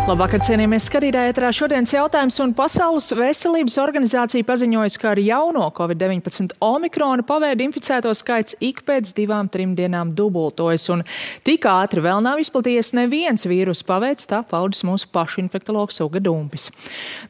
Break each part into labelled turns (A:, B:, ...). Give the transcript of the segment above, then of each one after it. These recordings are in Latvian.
A: Labvakar, cienījamies skatītāji, ēterā šodienas jautājums, un Pasaules veselības organizācija paziņojas, ka ar jauno COVID-19 omikrona paveida inficēto skaits ik pēc 2-3 dienām dubultojas, un tik ātri vēl nav izplatījies neviens vīrusu paveids, tā paudis mūsu pašu infektologs Uga Dumpis.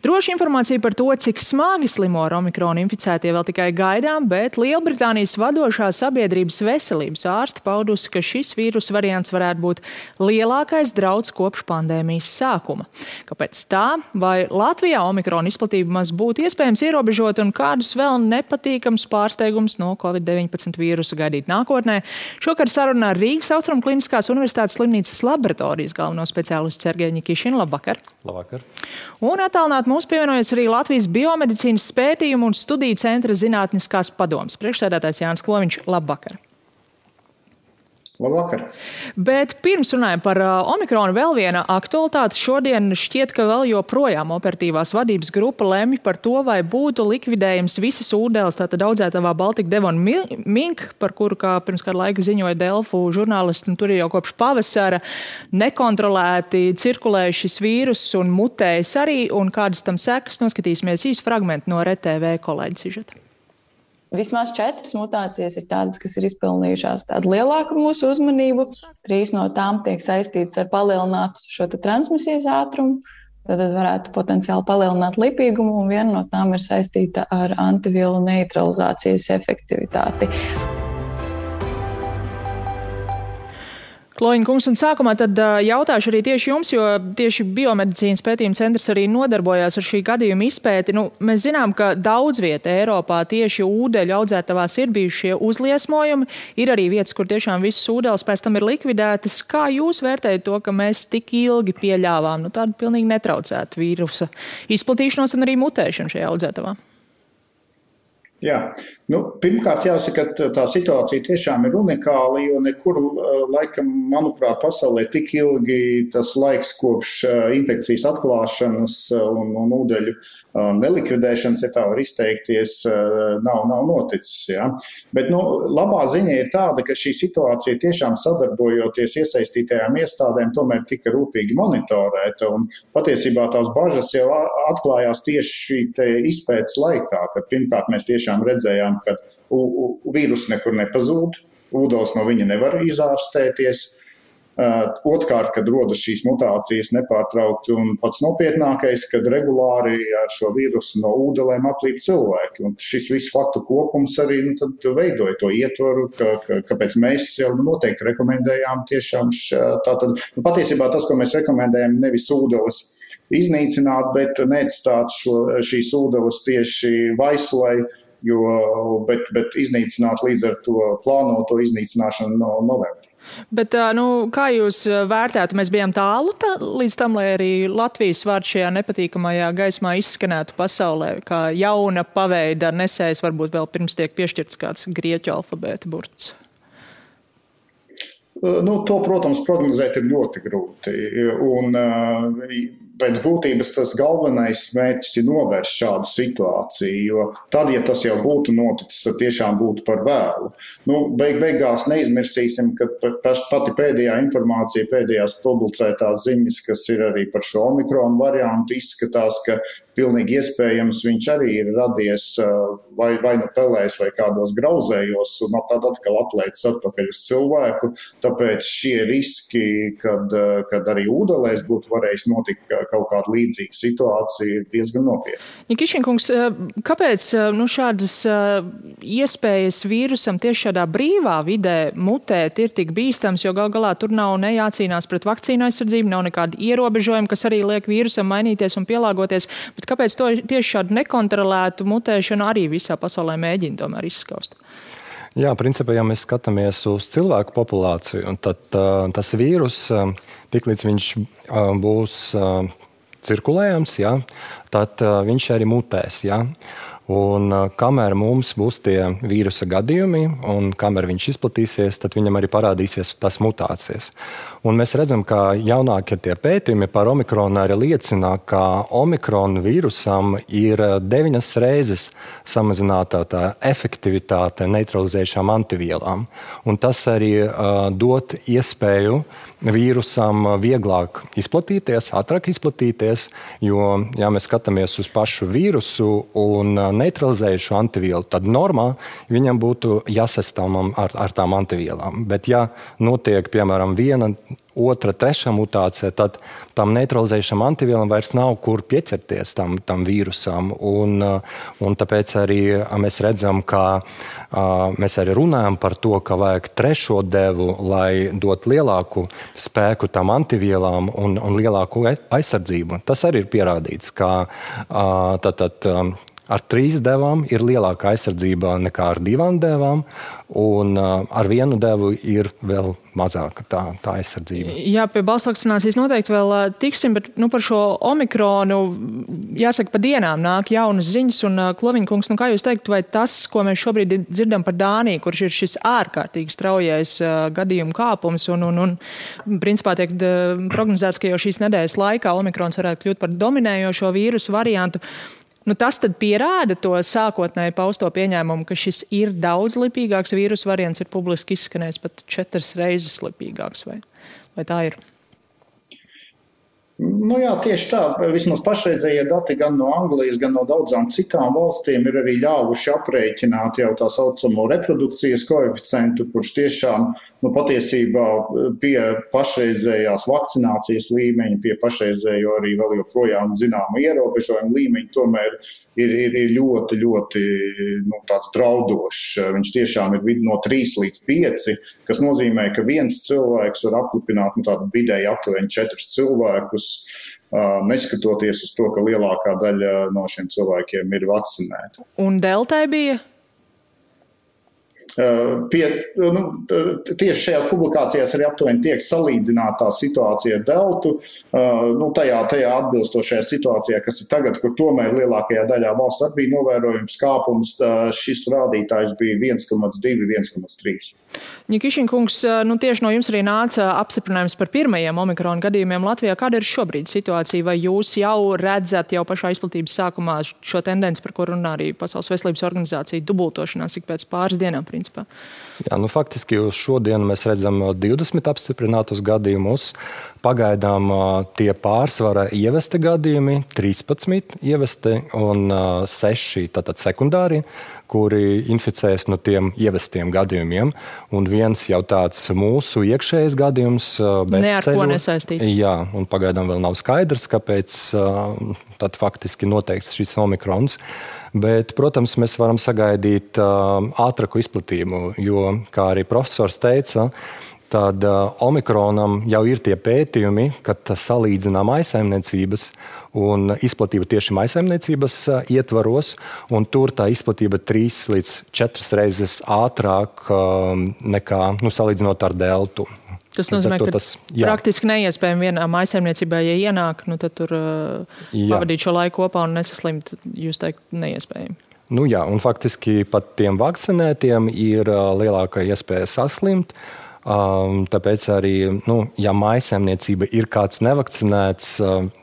A: Droši informācija par to, cik smagi slimo ar omikronu inficētie vēl tikai gaidām, bet Lielbritānijas vadošā sabiedrības veselības ārste paudusi, ka šis vīrusu variants varētu būt lielākais drauds kopš pandēmijas sākuma. Kāpēc tā? Vai Latvijā omikrona izplatība maz būtu iespējams ierobežot un kādus vēl nepatīkams pārsteigums no COVID-19 vīrusa gaidīt nākotnē? Šokar sarunā ar Rīgas Austrumu Kliniskās Universitātes slimnīcas laboratorijas galveno speciālistu Sergeju Ņikišinu. Labvakar!
B: Labvakar!
A: Un attālināt mums pievienojas arī Latvijas biomedicīnas pētījumu un studiju centra zinātniskās padomes priekšsēdētājs Jānis Kloviņš. Labvakar!
C: Labvakar.
A: Bet pirms runājam par omikronu, vēl viena aktualitāte. Šodien šķiet, ka vēl joprojām operatīvās vadības grupa lemj par to, vai būtu likvidējams visas ūdeles, tātad audzētavā Baltika Devon Mink, par kuru, kā pirms kādu laiku ziņoja Delfu žurnālisti, un tur ir jau kopš pavasara nekontrolēti cirkulē šis vīrus un mutējas arī, un kādas tam sekas, noskatīsimies īsu fragmentu no RTV kolēģa sižeta.
D: Vismaz 4 mutācijas ir tādas, kas ir izpelnījušās tādu lielāku mūsu uzmanību. 3 no tām tiek saistītas ar palielinātu šo transmisijas ātrumu. Tad varētu potenciāli palielināt lipīgumu, un viena no tām ir saistīta ar antivielu neutralizācijas efektivitāti.
A: Kloviņa kungs, un sākumā tad jautāšu arī tieši jums, jo tieši biomedicīnas pētījuma centrs arī nodarbojās ar šī gadījuma izpēti. Mēs zinām, ka daudz vieta Eiropā tieši ūdeļu audzētavās ir bijuši šie uzliesmojumi. Ir arī vietas, kur tiešām visas ūdeles pēc tam ir likvidētas. Kā jūs vērtējat to, ka mēs tik ilgi pieļāvām tādu pilnīgi netraucētu vīrusa izplatīšanos un arī mutēšanu šajā audzētavā?
C: Jā, pirmkārt jāsaka, ka tā situācija tiešām ir unikāla, jo nekur laikam, manuprāt, pasaulē tik ilgi tas laiks kopš infekcijas atklāšanas un ūdeļu nelikvidēšanas, ja tā var izteikties, nav noticis. Ja? Bet labā ziņa ir tāda, ka šī situācija tiešām sadarbojoties iesaistītajām iestādēm tomēr tika rūpīgi monitorēta, un patiesībā tās bažas jau atklājās tieši šī izpētes laikā, kad pirmkārt mēs tiešām redzējām, ka vīrus nekur nepazūd, ūdens no viņa nevar izārstēties. Otrkārt, kad rodas šīs mutācijas nepārtraukti, un pats nopietnākais, kad regulāri ar šo vīrusu no ūdelēm aplīp cilvēki. Un šis viss faktu kopums arī tad veidoja to ietvaru, kāpēc mēs jau noteikti rekomendējām tiešām tātad. Patiesībā tas, ko mēs rekomendējam, nevis ūdeles iznīcināt, bet neatstāt šīs ūdeles tieši vaislai, bet iznīcināt līdz ar to plānoto iznīcināšanu no novembrī.
A: Bet kā jūs vērtētu, mēs bijām tālu līdz tam, lai arī Latvijas vārds šajā nepatīkamajā gaismā izskanētu pasaulē, kā jauna paveida nesējs, varbūt vēl pirms tiek piešķirts kāds grieķu alfabēta burts?
C: To, protams, prognozēt ir ļoti grūti. Un pēc būtības tas galvenais mērķis ir novērst šādu situāciju, jo tad, ja tas jau būtu noticis, tad tiešām būtu par vēlu. Beigās neizmirsīsim, ka pati pēdējā informācija, pēdējās publicētās ziņas, kas ir arī par šo omikronu variantu, izskatās, ka pilnīgi iespējams viņš arī ir radies vai pelēs vai kādos grauzējos, un tad atkal atlaicis atpakaļ uz cilvēku. Tāpēc šie riski, kad arī ūdelēs būtu varējis notikt kaut kāda līdzīga situācija, ir diezgan nopietna.
A: Ņikišin kungs, kāpēc šādas iespējas vīrusam tieši šādā brīvā vidē mutēt ir tik bīstams, jo gal galā tur nav ne jācīnās pret vakcīnu aizsardzību, nav nekādi ierobežojumi, kas arī liek vīrusam mainīties un pielāgoties, bet kāpēc to tieši šādu nekontrolētu mutēšanu arī visā pasaulē mēģina tomēr izskaust?
B: Jā, principā, ja mēs skatāmies uz cilvēku populāciju, tad tas vīrus, tiklīdz viņš būs cirkulējams, tad viņš arī mutēs. Ja? Un kamēr mums būs tie vīrusa gadījumi un kamēr viņš izplatīsies, tad viņam arī parādīsies tas mutācijas. Un mēs redzam, ka jaunākie tie pētījumi par omikronu arī liecina, ka omikronu vīrusam ir 9 reizes samazinātā tā efektivitāte neutralizējušām antivielām. Un tas arī dot iespēju vīrusam vieglāk izplatīties, ātrāk izplatīties, jo, ja mēs skatāmies uz pašu vīrusu un neutralizējušu antivielu, tad normā viņam būtu jāsastāvam ar tām antivielām. Bet ja notiek, piemēram, 1, 2, 3 mutācija, tad tam neutralizējušam antivielam vairs nav kur pieķerties tam vīrusam. Un tāpēc arī mēs redzam, ka mēs arī runājam par to, ka vajag 3. devu, lai dot lielāku spēku tam antivielām un lielāku aizsardzību. Tas arī ir pierādīts, ka ar 3 devām ir lielāka aizsardzība nekā ar 2 devām, un ar 1 devu ir vēl mazāka tā aizsardzība.
A: Jā, pie balss vakcinācijas noteikti vēl tiksim, bet par šo omikronu, jāsaka, pa dienām nāk jaunas ziņas, un Kloviņkungs, kā jūs teikt, vai tas, ko mēs šobrīd dzirdam par Dāniju, kurš ir šis ārkārtīgi straujais gadījumu kāpums, un principā tiek prognozēts, ka jau šīs nedēļas laikā omikrons varētu kļūt par dominējošo vīrusu variantu. Tas tad pierāda to sākotnēji pausto pieņēmumu, ka šis ir daudz lipīgāks vīrusu variants, ir publiski izskanējis pat 4 reizes lipīgāks, vai tā ir?
C: Jā, tieši tā. Vismaz pašreizējie dati gan no Anglijas, gan no daudzām citām valstīm ir arī ļāvuši aprēķināt jau tā saucamo reprodukcijas koeficientu, kurš tiešām patiesībā pie pašreizējās vakcinācijas līmeņa, pie pašreizējo arī vēl joprojām zināmu ierobežojumu līmeņa, tomēr ir ļoti, ļoti tāds draudošs. Viņš tiešām ir no 3 līdz 5, kas nozīmē, ka viens cilvēks var aplipināt tādu vidēji aptuveni 4 cilvēkus, neskatoties uz to, ka lielākā daļa no šiem cilvēkiem ir vakcinēti.
A: Un deltai bija?
C: Tieši šajās publikācijās arī aptuveni tiek salīdzināta situācija ar deltu. Tajā atbilstošajā situācijā, kas ir tagad, kur tomēr lielākajā daļā valstu arī bija novērojums kāpums, šis rādītājs bija 1,2, 1,3.
A: Ņikišinkungs, tieši no jums arī nāca apstiprinājums par pirmajiem omikrona gadījumiem Latvijā. Kāda ir šobrīd situācija? Vai jūs jau redzat jau pašā izplatības sākumā šo tendenci, par ko runā arī Pasaules veselības organizācija, dubultošanās ik pēc pāris dienām, principā?
B: Jā, faktiski uz šodienu mēs redzam 20 apstiprinātus gadījumus. Pagaidām tie pārsvara ievesti gadījumi, 13 ievesti un 6 tātad sekundāri, kuri inficēs no tiem ievestiem gadījumiem. Un viens jau tāds mūsu iekšējais gadījums
A: ne ar ko nesaistīts.
B: Jā, un pagaidām vēl nav skaidrs, kāpēc tad faktiski noteikts šis omikrons. Bet, protams, mēs varam sagaidīt ātrāku izplatību, jo, kā arī profesors teica, tad omikronam jau ir tie pētījumi, kad salīdzinām maisaimniecības un izplatība tieši maisaimniecības ietvaros, un tur tā izplatība 3 līdz 4 reizes ātrāk nekā salīdzinot ar deltu.
A: Tas nozīmē, ka praktiski neiespējami vienā maisaimniecībā, ja ienāk, tad tur pavadīt šo laiku kopā un nesaslimt, jūs teikt, neiespējami.
B: Jā, un faktiski pat tiem vakcinētiem ir lielākā iespēja saslimt. Tāpēc arī, ja maisaimniecība ir kāds nevakcinēts,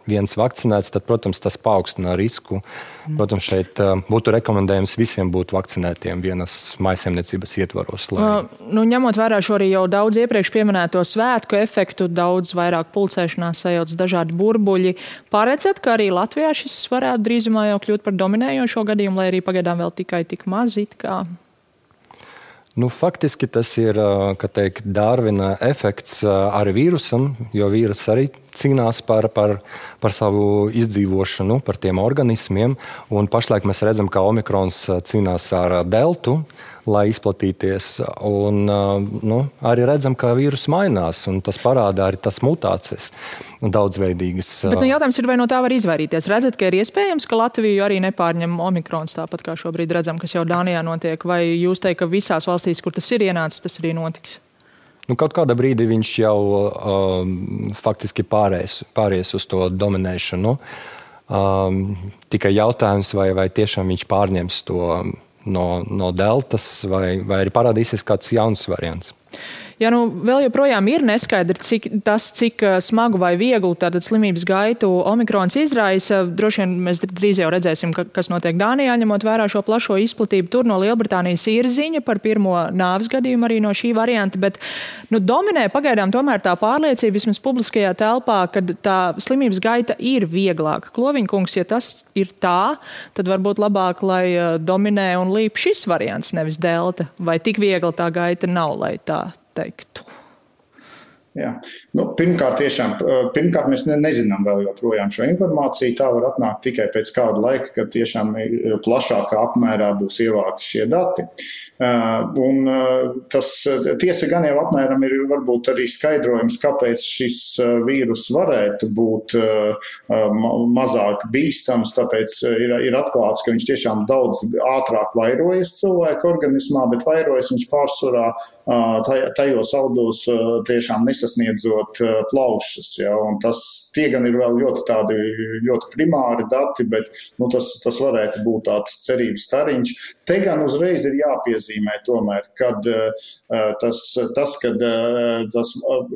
B: viens vakcinēts, tad, protams, tas paaugstina risku. Protams, šeit būtu rekomendējums visiem būt vakcinētiem vienas maisaimniecības ietvaros.
A: Ņemot vērā šo arī jau daudz iepriekš pieminēto svētku efektu, daudz vairāk pulcēšanās sajauc dažādi burbuļi. Paredzat, ka arī Latvijā šis varētu drīzumā jau kļūt par dominējošo gadījumu, lai arī pagaidām vēl tikai tik maz it kā?
B: Faktiski tas ir, Darvina efekts ar vīrusam, jo vīrus arī cīnās par savu izdzīvošanu, par tiem organismiem. Un pašlaik mēs redzam, ka omikrons cīnās ar deltu, lai izplatīties. Un arī redzam, ka vīrus mainās, un tas parāda arī tas mutācijas daudzveidīgas.
A: Bet jautājums ir, vai no tā var izvairīties? Redzat, ka ir iespējams, ka Latviju arī nepārņem omikrons tāpat, kā šobrīd redzam, kas jau Dānijā notiek? Vai jūs teikt, ka visās valstīs, kur tas ir ienācis, tas arī notiks?
B: Kaut kādā brīdī viņš jau faktiski pāries uz to dominēšanu. Tikai jautājums, vai tiešām viņš pārņems to no deltas, vai arī parādīsies kāds jauns variants.
A: Ja vēl joprojām ir neskaidri, cik smagu vai vieglu tātad slimības gaitu omikrons izraisa, droši vien mēs drīz jau redzēsim, kas notiek Dānijā, ņemot vērā šo plašo izplatību. Tur no Lielbritānijas ir ziņa par pirmo nāves gadījumu arī no šī varianta, bet dominē pagaidām tomēr tā pārliecība vismaz publiskajā telpā, kad tā slimības gaita ir vieglāka. Kloviņkungs, ja tas ir tā, tad varbūt labāk, lai dominē un līp šis variants, nevis delta, vai tik viegla tā gaita nav, lai tā teiktu.
C: Jā. Pirmkārt, mēs nezinām vēl joprojām šo informāciju. Tā var atnākt tikai pēc kāda laika, kad tiešām plašākā apmērā būs ievākti šie dati. Un tas tiesa gan jau apmēram ir varbūt arī skaidrojums, kāpēc šis vīrus varētu būt mazāk bīstams, tāpēc ir atklāts, ka viņš tiešām daudz ātrāk vairojas cilvēka organismā, bet vairojas viņš pārsvarā tajos audos tiešām nesasniedzot plaušas. Ja, un tie gan ir vēl ļoti primāri dati, bet tas varētu būt tāds cerības stariņš. Te gan uzreiz ir jāpiezīmē tomēr, kad tas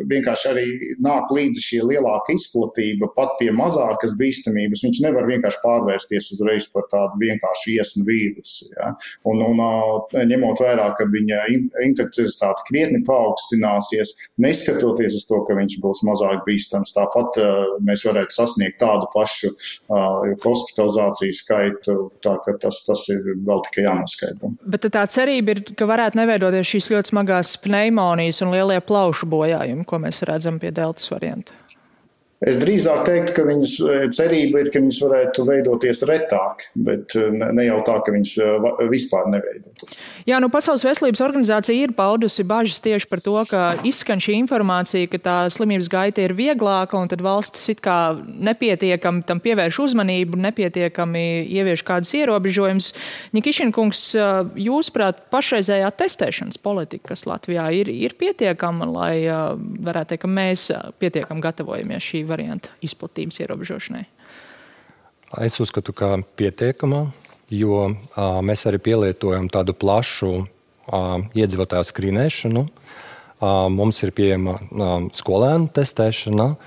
C: vienkārši arī nāk līdzi šī lielāka izplatība, pat pie mazākas bīstamības, viņš nevar vienkārši pārvērsties uzreiz par tādu vienkārši iesnu vīrusu. Ja. Un ņemot vērā, ka viņa infekciozitāte krietni paaugstināsies, neskatoties uz to, ka viņš būs mazāk bīstams, tāpat mēs varētu sasniegt tādu pašu hospitalizāciju skaitu, tā ka tas ir vēl tikai jānoskaidro.
A: Bet tā cerība ir, ka varētu neveidoties šīs ļoti smagās pneimonijas un lielie plaušu bojājumi, ko mēs redzam pie deltas varianta.
C: Es drīzāk teiktu, ka viņas cerība ir, ka viņas varētu veidoties retāk, bet ne jau tā, ka viņas vispār neveidotos.
A: Jā, Pasaules veselības organizācija ir paudusi bažas tieši par to, ka izskan šī informācija, ka tā slimības gaita ir vieglāka un tad valstis it kā nepietiekami tam pievērš uzmanību, nepietiekami ievieš kādus ierobežojumus. Ņikišinkungs, jūsuprāt, pašreizējā testēšanas politika, kas Latvijā ir pietiekama, lai varētu teikt, ka mēs pietiekami gatavojamies šī varianta izplatības ierobežošanai?
B: Es uzskatu, ka pietiekamā, jo mēs arī pielietojam tādu plašu iedzīvotāju skrīnēšanu. Mums ir pieejama skolēnu testēšana,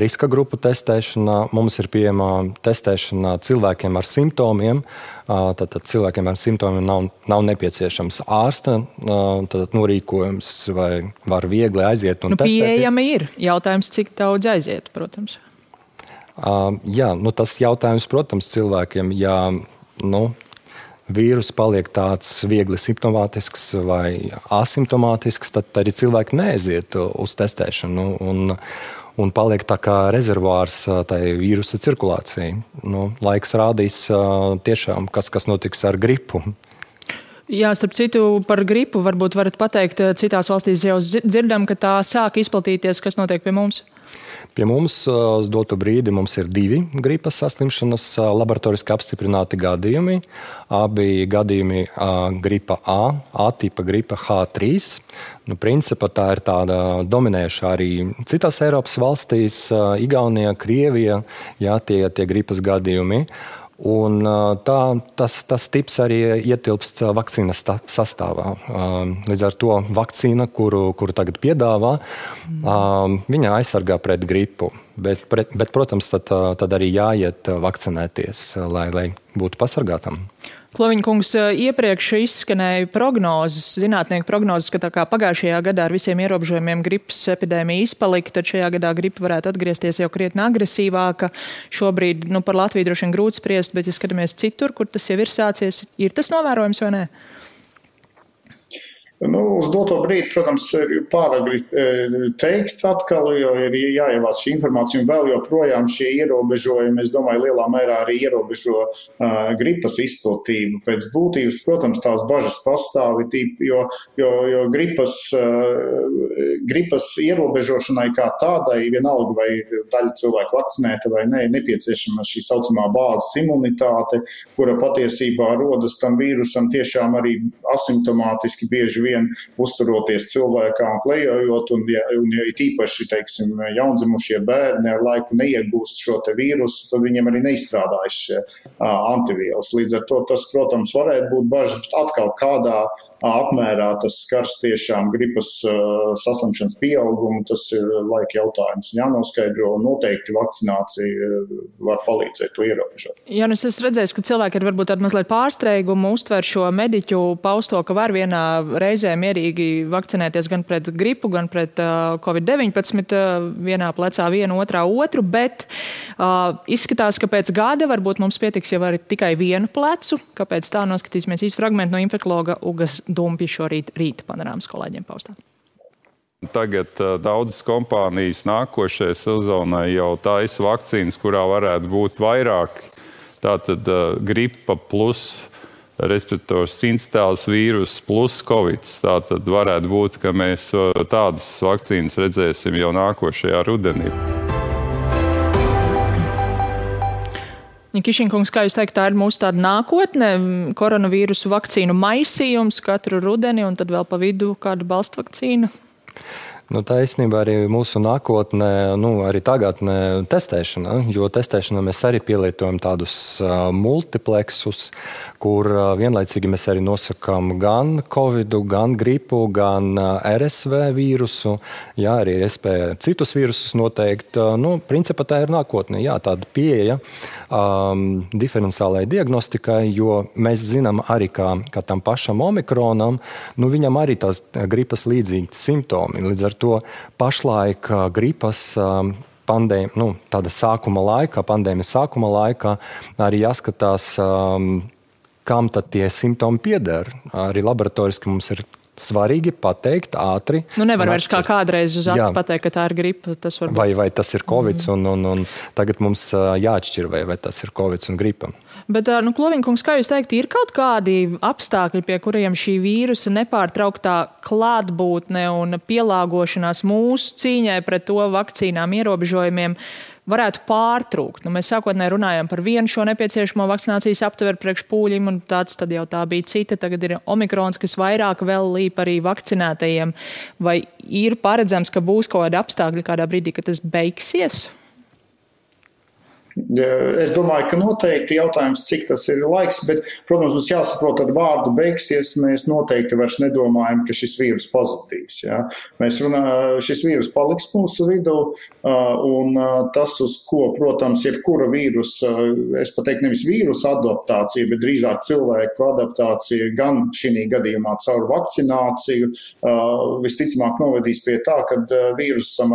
B: riska grupu testēšana, mums ir pieejama testēšana cilvēkiem ar simptomiem. Tātad cilvēkiem ar simptomiem nav nepieciešams ārsta norīkojums vai var viegli aiziet un testēties.
A: Pieejama ir. Jautājums, cik daudz aiziet, protams.
B: Jā, tas jautājums, protams, cilvēkiem, ja vīrus paliek tāds viegli simptomātisks vai asimptomātisks, tad arī cilvēki neaiziet uz testēšanu un paliek tā kā rezervārs tai vīrusa cirkulācijai. Laiks rādīs tiešām, kas notiks ar gripu.
A: Jā, starp citu, par gripu varbūt varat pateikt, citās valstīs jau dzirdam, ka tā sāk izplatīties, kas notiek pie mums?
B: Pie mums uz dotu brīdi mums ir 2 gripas saslimšanas laboratoriski apstiprināti gadījumi. Abi gadījumi gripa A tipa gripa H3. Principā tā ir tāda dominējuša arī citās Eiropas valstīs, Igaunija, Krievija, tie gripas gadījumi. Un tas tips arī ietilpst vakcīnas sastāvā. Līdz ar to vakcīna, kuru tagad piedāvā, viņa aizsargā pret gripu. Bet protams, tad arī jāiet vakcinēties, lai būtu pasargātam.
A: Kloviņkungs, iepriekš izskanēja prognozes, zinātnieku prognozes, ka tā kā pagājušajā gadā ar visiem ierobežojumiem gripas epidēmija izpalika, tad šajā gadā gripa varētu atgriezties jau krietni agresīvāka. Šobrīd par Latviju droši vien grūti spriest, bet ja skatāmies citur, kur tas jau ir sācies, ir tas novērojams vai nē?
C: Uz doto brīdi, protams, ir pāragri teikt atkal, jo ir jāievāc šī informācija un vēl joprojām šie ierobežojumi, es domāju, lielā mērā arī ierobežo gripas izplatību. Pēc būtības, protams, tās bažas pastāv, jo gripas ierobežošanai kā tādai, vienalga vai daļa cilvēku vakcinēta vai ne, nepieciešama šī saucamā bāzes imunitāte, kura patiesībā rodas tam vīrusam tiešām arī asimptomātiski bieži vien uzturoties cilvēkā un klejojot, un ja tīpaši, teiksim, jaundzimušie bērni ar laiku neiegūst šo te vīrusu, tad viņiem arī neizstrādājas šie antivielas. Līdz ar to tas, protams, varētu būt bažas, bet atkal kādā apmērā tas skars tiešām gripas saslimšanas pieaugumu, tas ir laika jautājums. Jānoskaidro, un noteikti vakcinācija var palīdzēt to ierobežot.
A: Jā, es esmu redzējis, ka cilvēki ir varbūt tādu mazliet pārsteigumu uztver šo mediķu pausto, ka var vienā reizē mierīgi vakcinēties gan pret gripu, gan pret Covid-19, vienā plecā vienu, otrā otru, bet izskatās, ka pēc gada varbūt mums pietiks jau arī tikai vienu plecu. Kāpēc tā? Noskatīsimies īsti fragmentu no infekologa Ugas Dumpja šorīt rīta panorāmas kolēģiem paustā.
E: Tagad daudzas kompānijas nākošajai sezonai jau taisa vakcīnas, kurā varētu būt vairāk. Tātad gripa plus respirators sincitēls vīrus plus Covid. Tātad varētu būt, ka mēs tādas vakcīnas redzēsim jau nākošajā rudenī.
A: Kišinkungs, kā jūs teikt, tā ir mūsu tāda nākotne, koronavīrusu vakcīnu maisījums katru rudeni un tad vēl pa vidu kādu balstvakcīnu?
B: Tā īstenībā arī mūsu nākotnē, arī tagadnē testēšana, jo testēšanā mēs arī pielietojam tādus multipleksus, kur vienlaicīgi mēs arī nosakām gan Covidu, gan gripu, gan RSV vīrusu, jā, arī iespēja citus vīrusus noteikt. Principā tā ir nākotne, jā, tāda pieeja diferenciālai diagnostikai, jo mēs zinām arī, ka tam pašam omikronam, viņam arī tās gripas līdzīgi simptomi. Līdz ar to pašlaik gripas tāda sākuma laikā, pandēmijas sākuma laikā arī jāskatās, kam tad tie simptomi pieder. Arī laboratoriski mums ir svarīgi pateikt ātri.
A: Nevar vairs kā kādreiz uz acis pateikt, ka tā ir gripa. Tas var būt.
B: Vai tas ir Covid, un tagad mums jāatšķir, vai tas ir Covid un gripa.
A: Bet, Kloviņkungs, kā jūs teikt, ir kaut kādi apstākļi, pie kuriem šī vīrusa nepārtrauktā klātbūtne un pielāgošanās mūsu cīņai pret to vakcīnām ierobežojumiem varētu pārtrūkt? Mēs sākotnēji runājām par vienu šo nepieciešamo vakcinācijas aptveru priekš pūļiem, un tad jau tā bija cita. Tagad ir omikrons, kas vairāk vēl līp arī vakcinētajiem. Vai ir paredzams, ka būs kaut kādi apstākļi kādā brīdī, ka tas beigsies?
C: Es domāju, ka noteikti jautājums, cik tas ir laiks, bet, protams, mums jāsaprot, ar vārdu beigsies, mēs noteikti vairs nedomājam, ka šis vīrus pazudīs. Ja? Šis vīrus paliks mūsu vidū, un tas, uz ko, protams, jebkura vīrusa, es pateiktu nevis vīrusa adaptācija, bet drīzāk cilvēku adaptācija gan šī gadījumā caur vakcināciju, visticamāk novedīs pie tā, kad vīrusam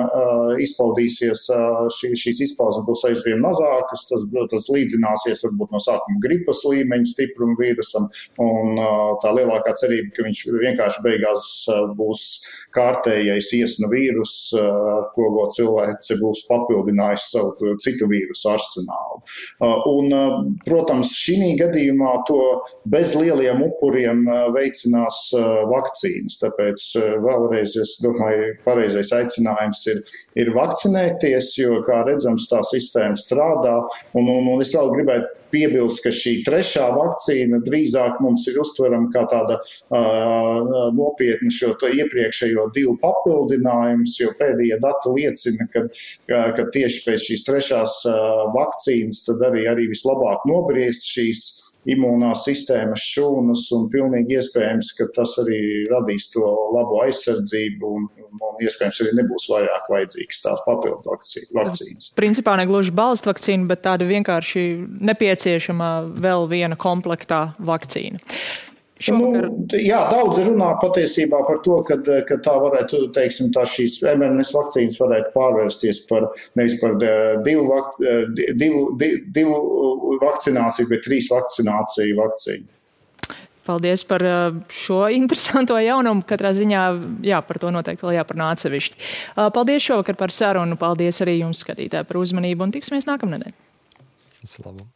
C: izpaudīsies, šīs izpausmes būs aizvien mazāk, tas līdzināsies varbūt no sākuma gripas līmeņa stiprumu vīrusam, un tā lielākā cerība, ka viņš vienkārši beigās būs kārtējais iesnu vīrus, ar ko cilvēks būs papildinājis savu citu vīrusu arsenālu. Un, protams, šī gadījumā to bez lieliem upuriem veicinās vakcīnas, tāpēc vēlreiz, es domāju, pareizais aicinājums ir vakcinēties, jo, kā redzams, tā sistēma strādā. Un es vēl gribētu piebilst, ka šī trešā vakcīna drīzāk mums ir uztverama kā tāda nopietna šo iepriekšējo divu papildinājums, jo pēdējie dati liecina, ka tieši pēc šīs trešās vakcīnas tad arī vislabāk nobriest šīs imūnās sistēmas šūnas, un pilnīgi iespējams, ka tas arī radīs to labo aizsardzību, un iespējams arī nebūs vairāk vajadzīgs tās papildu vakcīnas.
A: Principā ne gluži balstu vakcīna, bet tāda vienkārši nepieciešama vēl viena komplektā vakcīna.
C: Daudzi runā patiesībā par to, ka tā varētu, teiksim, šīs mRNS vakcīnas varētu pārvērsties nevis par divu vakcināciju, bet 3 vakcīnu.
A: Paldies par šo interesanto jaunumu. Katrā ziņā, par to noteikti vēl jāparunā atsevišķi. Paldies šovakar par sarunu. Paldies arī jums, skatītāji, par uzmanību, un tiksimies nākamnedēļ.
B: Visu labu.